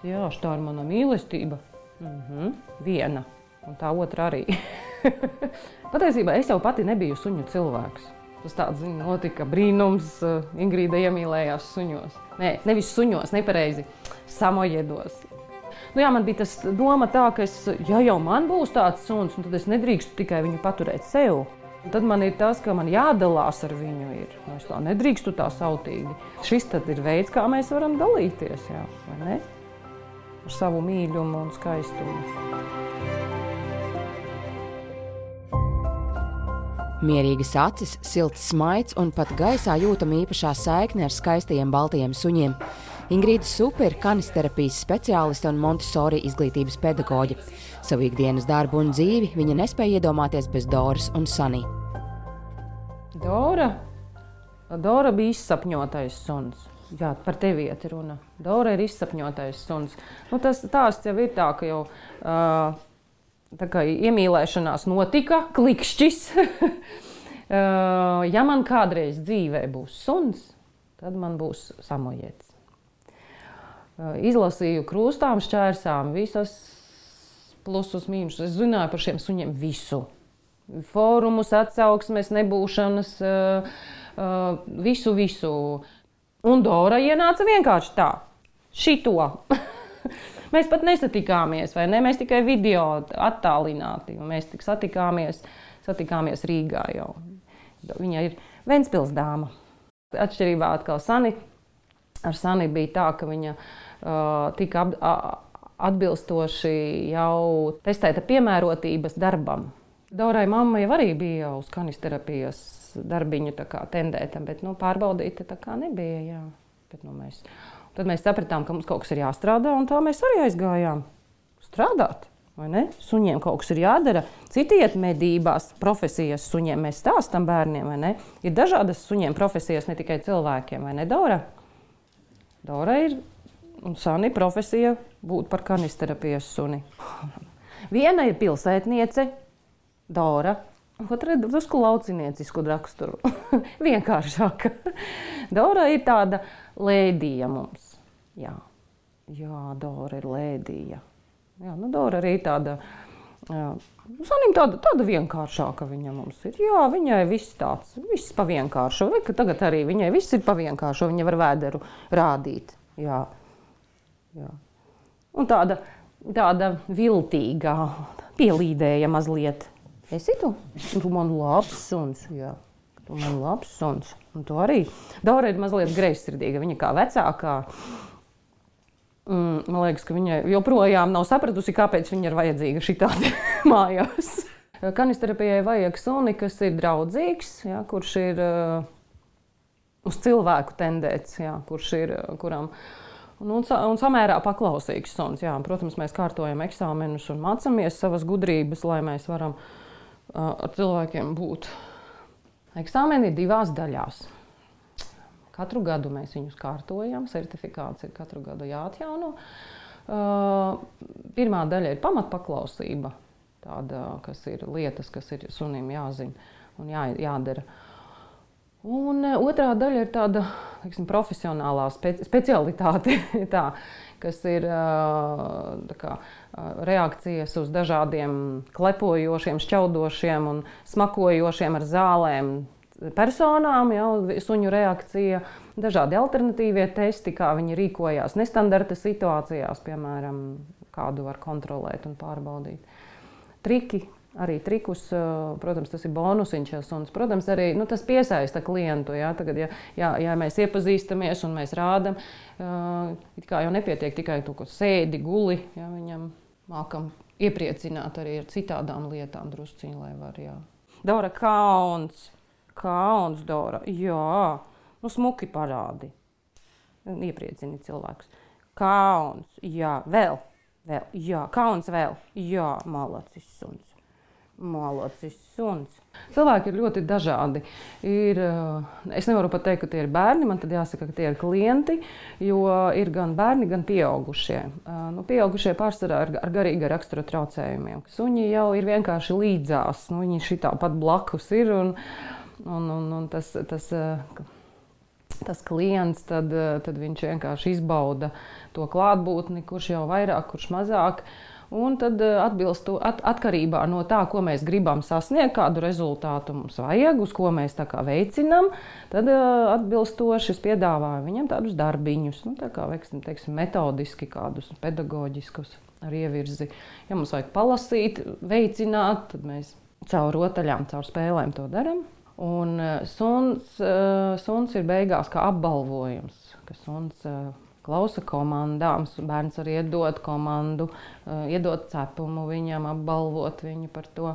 Jā, tā ir mana mīlestība. Viena, un tā otra arī. Patiesībā es jau pati nebiju suņu cilvēks. Tas tāds, notika brīnums, Ingrīda iemīlējās suņos. Nē, nevis suņos, nepareizi, samojedos. Jā, man bija tas doma tā, ka ja jau man būs tāds suns, tad es nedrīkstu tikai viņu paturēt sev. Un tad man ir tas, ka man jādalās ar viņu ir. Es tā nedrīkstu tā sautīgi. Šis tad ir veids, kā mēs varam dalīties, jā, vai ne? Ar savu mīļumu un skaistumu. Mierīgas acis, silts smaids un pat gaisā jūtama īpašā saikne ar skaistajiem baltajiem suņiem. Ingrīda Supe ir kanisterapijas speciāliste un Montessori izglītības pedagoģe. Savu ikdienas darbu un dzīvi viņa nespēja iedomāties bez Doras un Sunny. Dora bija izsapņotais suns. Jā, par tevi iet runa. Dora ir izsapņotais suns. Tas stāsts jau ir tā, ka jau tā kā iemīlēšanās notika, klikšķis. Ja man kādreiz dzīvē būs suns, tad man būs samojets. Izlasīju krūstām, šķērsām, visas plusus, mīnusus. Es zināju par šiem suņiem visu. Fórumus, atsauksmes, nebūšanas, visu. Un Dora ienāca vienkārši tā, šito. Mēs pat nesatikāmies, vai ne? Mēs tikai video attālināti. Mēs tik satikāmies Rīgā jau. Viņa ir Ventspils dāma. Atšķirībā atkal Sunny. Ar Sunny bija tā, ka viņa tika atbilstoši jau testēta piemērotības darbam. Dorai mamma jau arī bija uz kanisterapijas darbiņu tā kā tendēta, bet pārbaudīta tā kā nebija. Jā. Bet, tad mēs sapratām, ka mums kaut kas ir jāstrādā, un tā mēs arī aizgājām strādāt. Vai ne? Suņiem kaut kas ir jādara. Citi iet medībās, profesijas suņiem. Mēs stāstam bērniem, vai ne? Ir dažādas suņiem profesijas, ne tikai cilvēkiem, vai ne, Dora? Dora ir un Sunny profesija būt par kanisterapijas suni. Viena ir pilsētniece, Dora, otra ir drusku lauciniecisku raksturu. Vienkāršāka. Dora ir tāda lēdija mums. Jā, Dora ir lēdija. Jā, Dora arī tāda, Sunnym tāda vienkāršāka viņa mums ir. Jā, viņai viss pa vienkāršu. Tagad arī viņai viss ir pa vienkāršu, viņa var vēderu rādīt. Jā. Un tāda viltīgā, pielīdēja mazliet. Esi tu? Tu man labs suns, jā. Tu man labs suns. Un tu arī. Dora ir mazliet greizsirdīga, viņa kā vecākā. Man liekas, ka viņai joprojām nav sapratusi, kāpēc viņa ir vajadzīga šitādi mājās. Kanisterapijai vajag suni, kas ir draudzīgs, jā, kurš ir uz cilvēku tendēts, jā, kuram un samērā paklausīgs suns. Jā. Protams, mēs kārtojam eksāmenus un mācamies savas gudrības, lai mēs varam ar cilvēkiem būt. Eksāmeni ir 2 daļās. Katru gadu mēs viņus kārtojam, certifikāts ir katru gadu jāatjauno. Pirmā daļa ir pamatpaklausība, tāda, kas ir lietas, kas ir sunim jāzina un jādara. Un otrā daļa ir tāda, profesionālā specialitāte, tā, kas ir reakcijas uz dažādiem klepojošiem, šķaudošiem un smakojošiem ar zālēm personām, suņu reakcija, dažādi alternatīvie testi, kā viņi rīkojās nestandarta situācijās, piemēram, kādu var kontrolēt un pārbaudīt. Triki, arī trikus, protams, tas ir bonusiņš, un, protams, arī tas piesaista klientu. Ja? Tagad, ja mēs iepazīstamies un mēs rādam, it kā jau nepietiek tikai to, ko sēdi, guli, ja? Viņam mākam iepriecināt arī ar citādām lietām drusciņi, lai var, jā. Dora, Kauns, Dora, jā, smuki parādi. Iepriecini cilvēkus. Kauns, jā, vēl, jā, kauns vēl, jā, malacis suns. Cilvēki ir ļoti dažādi. Es nevaru pat teikt, ka tie ir bērni, man tad jāsaka, ka tie ir klienti, jo ir gan bērni, gan pieaugušie. Pieaugušie pārsvarā ar garīga rakstura traucējumiem. Suņi jau ir vienkārši līdzās, viņi šitā pat blakus ir, un tas tas klients, tad viņš vienkārši izbauda to klātbūtni, kurš jau vairāk, kurš mazāk. Un tad atkarībā no tā, ko mēs gribam sasniegt, kādu rezultātu mums vajag, uz ko mēs tā kā veicinām, tad atbilstoši es piedāvāju viņam tādus darbiņus, tā kā, teiksim, metodiski kādus pedagoģiskus ar ievirzi. Ja mums vajag palasīt, veicināt, tad mēs caur rotaļām, caur spēlēm to darām. Un suns ir beigās kā apbalvojums, ka suns klausa komandām, bērns arī iedod komandu, iedod cepumu viņam, apbalvot viņu par to.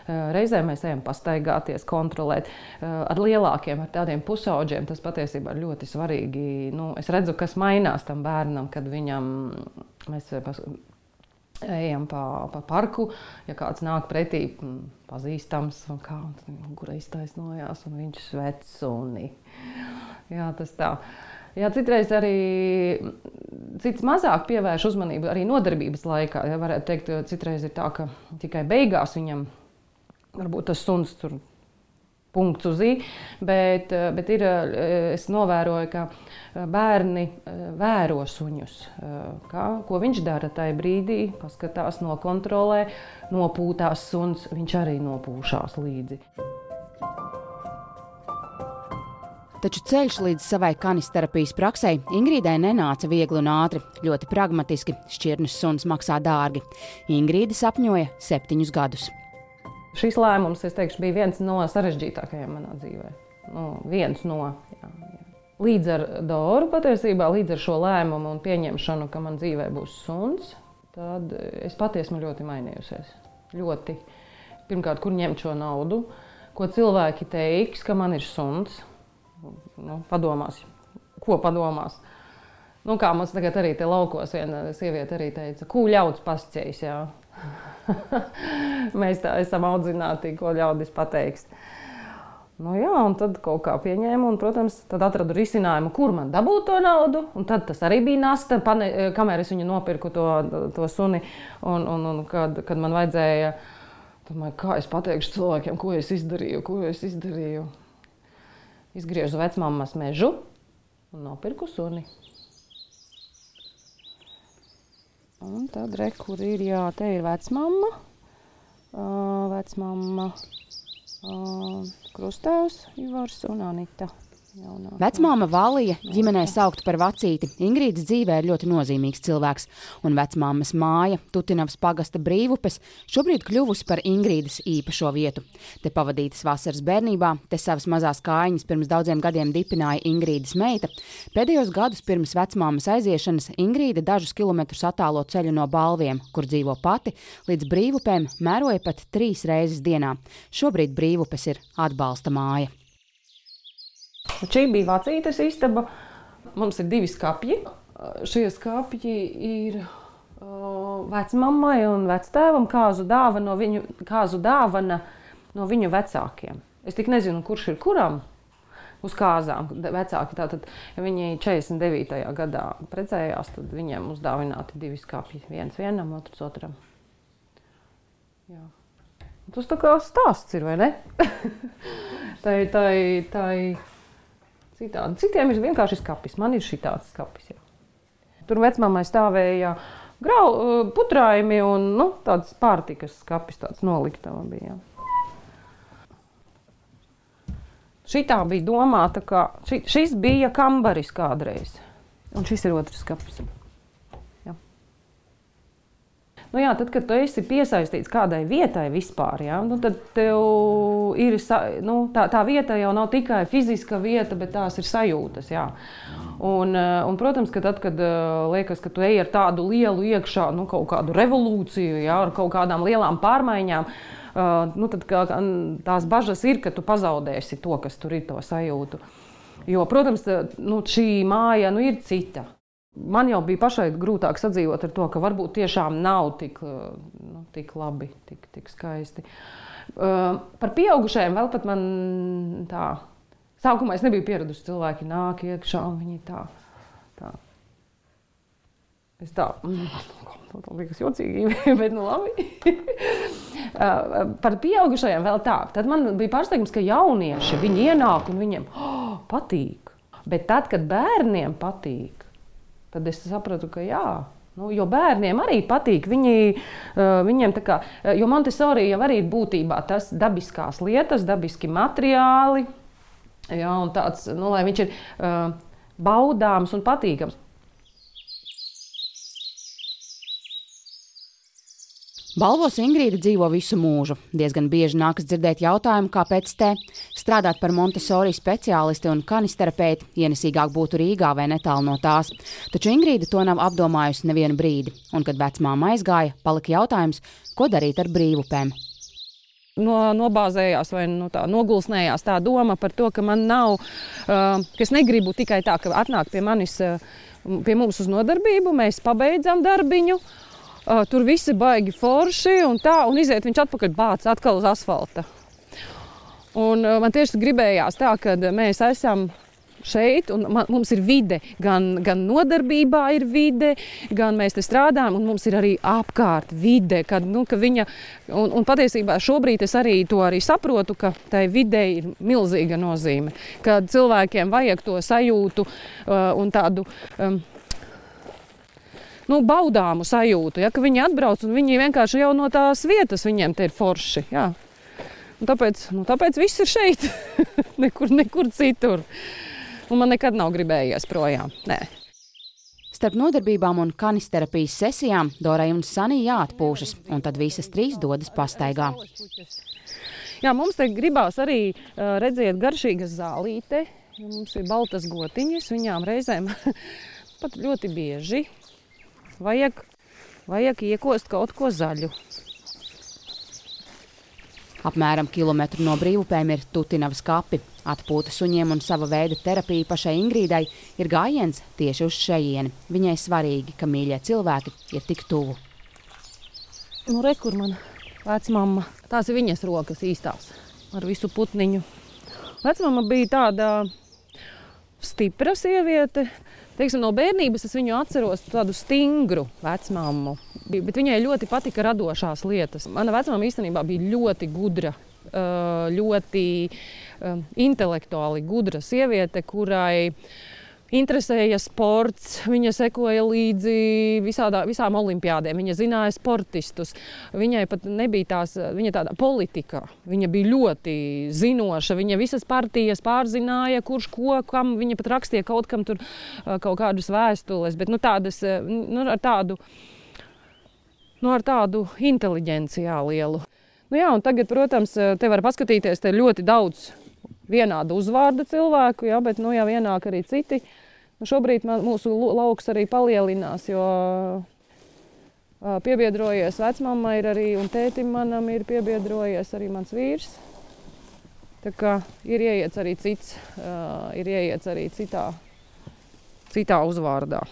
Reizē mēs ejam pastaigāties, kontrolēt. Ar lielākiem, ar tādiem pusauģiem tas patiesībā ir ļoti svarīgi. Es redzu, kas mainās tam bērnam, kad mēs ejam pa parku, ja kāds nāk pretī pazīstams, un kura iztaisnojās, un viņš svec suni. Jā, tas tā. Jā, citreiz arī cits mazāk pievērš uzmanību arī nodarbības laikā. Ja, varētu teikt, citreiz ir tā, ka tikai beigās viņam varbūt tas suns tur punkts uz i, bet es novēroju, ka bērni vēro suņus. Ko viņš dara tajā brīdī, paskatās, nokontrolē, nopūtās suns, viņš arī nopūšās līdzi. Taču ceļš līdz savai kanisterapijas praksei Ingrīdai nenāca viegli un ātri. Ļoti pragmatiski, šķirnes suns maksā dārgi. Ingrīda sapņoja 7 gadus. Šis lēmums, es teikšu, bija viens no sarežģītākajiem manā dzīvē. Jā. Līdz ar Doru patiesībā, līdz ar šo lēmumu un pieņemšanu, ka man dzīvē būs suns, tad es patiesi esmu ļoti mainījusies. Ļoti. Pirmkārt, kur ņemt šo naudu, ko cilvēki teiks, ka man ir suns. Padomās, ko padomās. Kā mums tagad arī te laukos viena sieviete arī teica, ko ļauds pasceļs, jā. Mēs tā esam audzināti, ko ļaudis pateiks. Jā, un tad kaut kā pieņēmu, un, protams, tad atradu risinājumu, kur man dabūt to naudu, un tad tas arī bija nasta, kamēr es viņu nopirku to suni, un kad man vajadzēja, domāju, kā es pateikšu cilvēkiem, ko es izdarīju. Izgriežu vecmammas mežu un nopirku suni. Un tad kur ir, jā, te ir vecmamma, krustāvs Ivars un Anita. Vecmāma Valija, ģimenē saukta par vacīti, Ingrīdas dzīvē ir ļoti nozīmīgs cilvēks, un vecmāmas māja, Tutinavas pagasta Brīvupes, šobrīd kļuvusi par Ingrīdas īpašo vietu. Te pavadītas vasaras bērnībā, te savas mazās kājiņas pirms daudziem gadiem dipināja Ingrīdas meita. Pēdējos gadus pirms vecmāmas aiziešanas Ingrīda dažus kilometrus attālo ceļu no Balviem, kur dzīvo pati, līdz Brīvupēm mēroja pat 3 reizes dienā. Šobrīd Brīvupes ir atbalsta māja. Šī bija vecītes istaba. Mums ir 2 skapji. Šie skapji ir vecmammai un vectēvam kāzu dāvana no viņu vecākiem. Es tik nezinu, kurš ir kuram uz kāzām. Vecāki tātad, ja viņi 49. gadā precējās, tad viņiem uzdāvināti 2 skapji. Viens vienam, otrs otram. Jā. Tas tā kā stāsts ir, vai ne? Tai citādi. Citiem ir vienkārši skapis. Man ir šitāds skapis. Jā. Tur vecmammai stāvēja putrājumi un tāds pārtikas skapis, tāds noliktava bija. Šitā bija domāta, ka šis bija kambaris kādreiz. Un šis ir otrs skapis. Jā, tad, kad tu esi piesaistīts kādai vietai vispār, tad tev ir, tā vieta jau nav tikai fiziska vieta, bet tās ir sajūtas, jā. Un protams, ka tad, kad liekas, ka tu ej ar tādu lielu iekšā, kaut kādu revolūciju, jā, ar kaut kādām lielām pārmaiņām, tad tās bažas ir, ka tu pazaudēsi to, kas tur ir, to sajūtu. Jo, protams, šī māja ir cita. Man jau bija pašai grūtāk sadzīvot ar to, ka varbūt tiešām nav tik labi, tik skaisti. Par pieaugušajiem vēl pat man tā. Sākumā es nebiju pieradusi, cilvēki nāk iekšā un viņi tā. Es tā liekas jocīgi, bet labi. Par pieaugušajiem vēl tā. Tad man bija pārsteigums, ka jaunieši, viņi ienāk un viņiem patīk. Bet tad, kad bērniem patīk, tad es sapratu, ka jā. Nu, jo bērniem arī patīk. Viņiem tā kā, jo Montessori jau arī ir būtībā tas dabiskās lietas, dabiski materiāli. Jā, un tāds, nu, lai viņš ir baudāms un patīkams. Balvos Ingrīda dzīvo visu mūžu. Diezgan bieži nākas dzirdēt jautājumu, kāpēc te strādāt par Montessori speciālisti un kanisterapeiti ienesīgāk būtu Rīgā vai netālu no tās. Taču Ingrīda to nav apdomājusi nevienu brīdi. Un, kad vecmāma aizgāja, palika jautājums, ko darīt ar brīvupēm. Nobāzējās vai nogulsnējās tā doma par to, ka man nav, ka es negribu tikai tā, ka atnāk pie mums uz nodarbību, mēs pabeidzam darbiņu, tur visi baigi forši un tā, un iziet viņš atpakaļ bāc atkal uz asfalta. Un man tieši gribējās tā, ka mēs esam šeit, un mums ir vide, gan nodarbībā ir vide, gan mēs te strādājam, un mums ir arī apkārt vide, ka viņa, un patiesībā šobrīd es arī to saprotu, ka tai videi ir milzīga nozīme, ka cilvēkiem vajag to sajūtu un tādu baudāmu sajūtu, ja, ka viņi atbrauc un viņi vienkārši jau no tās vietas viņiem te ir forši. Jā. Un tāpēc viss ir šeit, nekur citur. Un man nekad nav gribējies projām. Nē. Starp nodarbībām un kanisterapijas sesijām Dorai un Sanī jāatpūšas, un tad visas trīs dodas pastaigā. Jā, mums te gribās arī redzēt garšīgas zālīte. Mums ir baltas gotiņas, viņām reizēm pat ļoti bieži. Vajag iekost kaut ko zaļu. Apmēram kilometru no brīvupēm ir Tutinavas kapi. Atpūta suņiem un sava veida terapija pašai Ingrīdai ir gājiens tieši uz šejieni. Viņai svarīgi, ka mīļie cilvēki ir tik tuvu. Re, kur man vecmamma. Tās ir viņas rokas īstās ar visu putniņu. Vecmamma bija tāda stipra sieviete. Teiksim, no bērnības es viņu atceros tādu stingru vecmammu, bet viņai ļoti patika radošās lietas. Mana vecmamma īstenībā bija ļoti gudra, ļoti intelektuāli gudra sieviete, kurai interesēja sports, viņa sekoja līdzi visām olimpiādēm, viņa zināja sportistus. Viņai pat nebija viņa tāda politika, viņa bija ļoti zinoša, viņa visas partijas pārzināja, kurš ko, kam, viņa pat rakstīja kaut kam tur kaut kādas vēstules, bet tādas, ar tādu inteliģenci lielu. Jā, un tagad, protams, te var paskatīties, te ļoti daudz vienāda uzvārda cilvēku, jā, bet jau ienāk arī citi. Šobrīd mūsu lauks arī palielinās, jo piebiedrojies vecmamma ir arī, un tētim manam ir piebiedrojies arī mans vīrs. Tā kā ir ieiets arī cits, ir ieiets arī citā uzvārdā.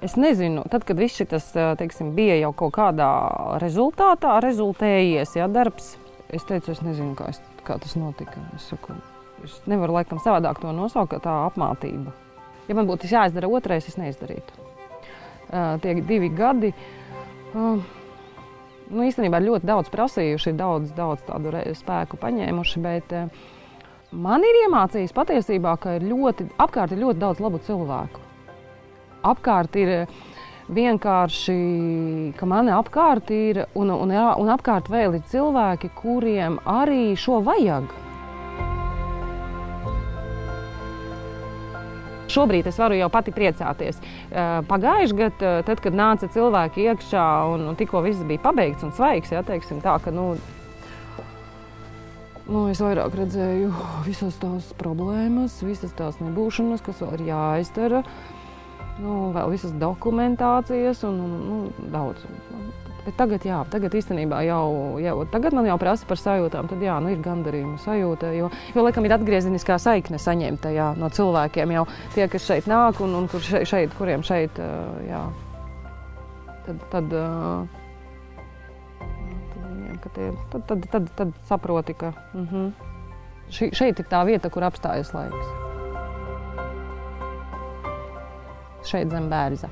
Es nezinu, tad, kad viss šitas, teiksim, bija jau kaut kādā rezultātā rezultējies, darbs, es teicu, es nezinu, kā tas notika. Es nevaru laikam savādāk to nosaukt, kā tā apmātība. Ja man būtu jāizdara otrais, es neizdarītu. Tie 2 gadi, īstenībā ļoti daudz prasījuši, daudz tādu spēku paņēmuši, bet man ir iemācījis patiesībā, ka apkārt ir ļoti daudz labu cilvēku. Apkārt ir vienkārši, ka mani apkārt ir, un apkārt vēl ir cilvēki, kuriem arī šo vajag. Šobrīd es varu jau pati priecāties. Pagājuši gadu, tad, kad nāca cilvēki iekšā un tikko viss bija pabeigts un svaigs, teiksim tā, ka es vairāk redzēju visas tās problēmas, visas tās nebūšanas, kas vēl ir jāizdara. Vēl visas dokumentācijas un daudz. Bet tagad īstenībā tagad man jau prasa par sajūtām, tad ir gandarījuma sajūta, jo laikam ir atgriezeniskā saikne saņemta no cilvēkiem, jau tie, kas šeit nāk un kuriem šeit, tad saproti, ka šeit ir tā vieta, kur apstājas laiks. Šeit zem Bērza.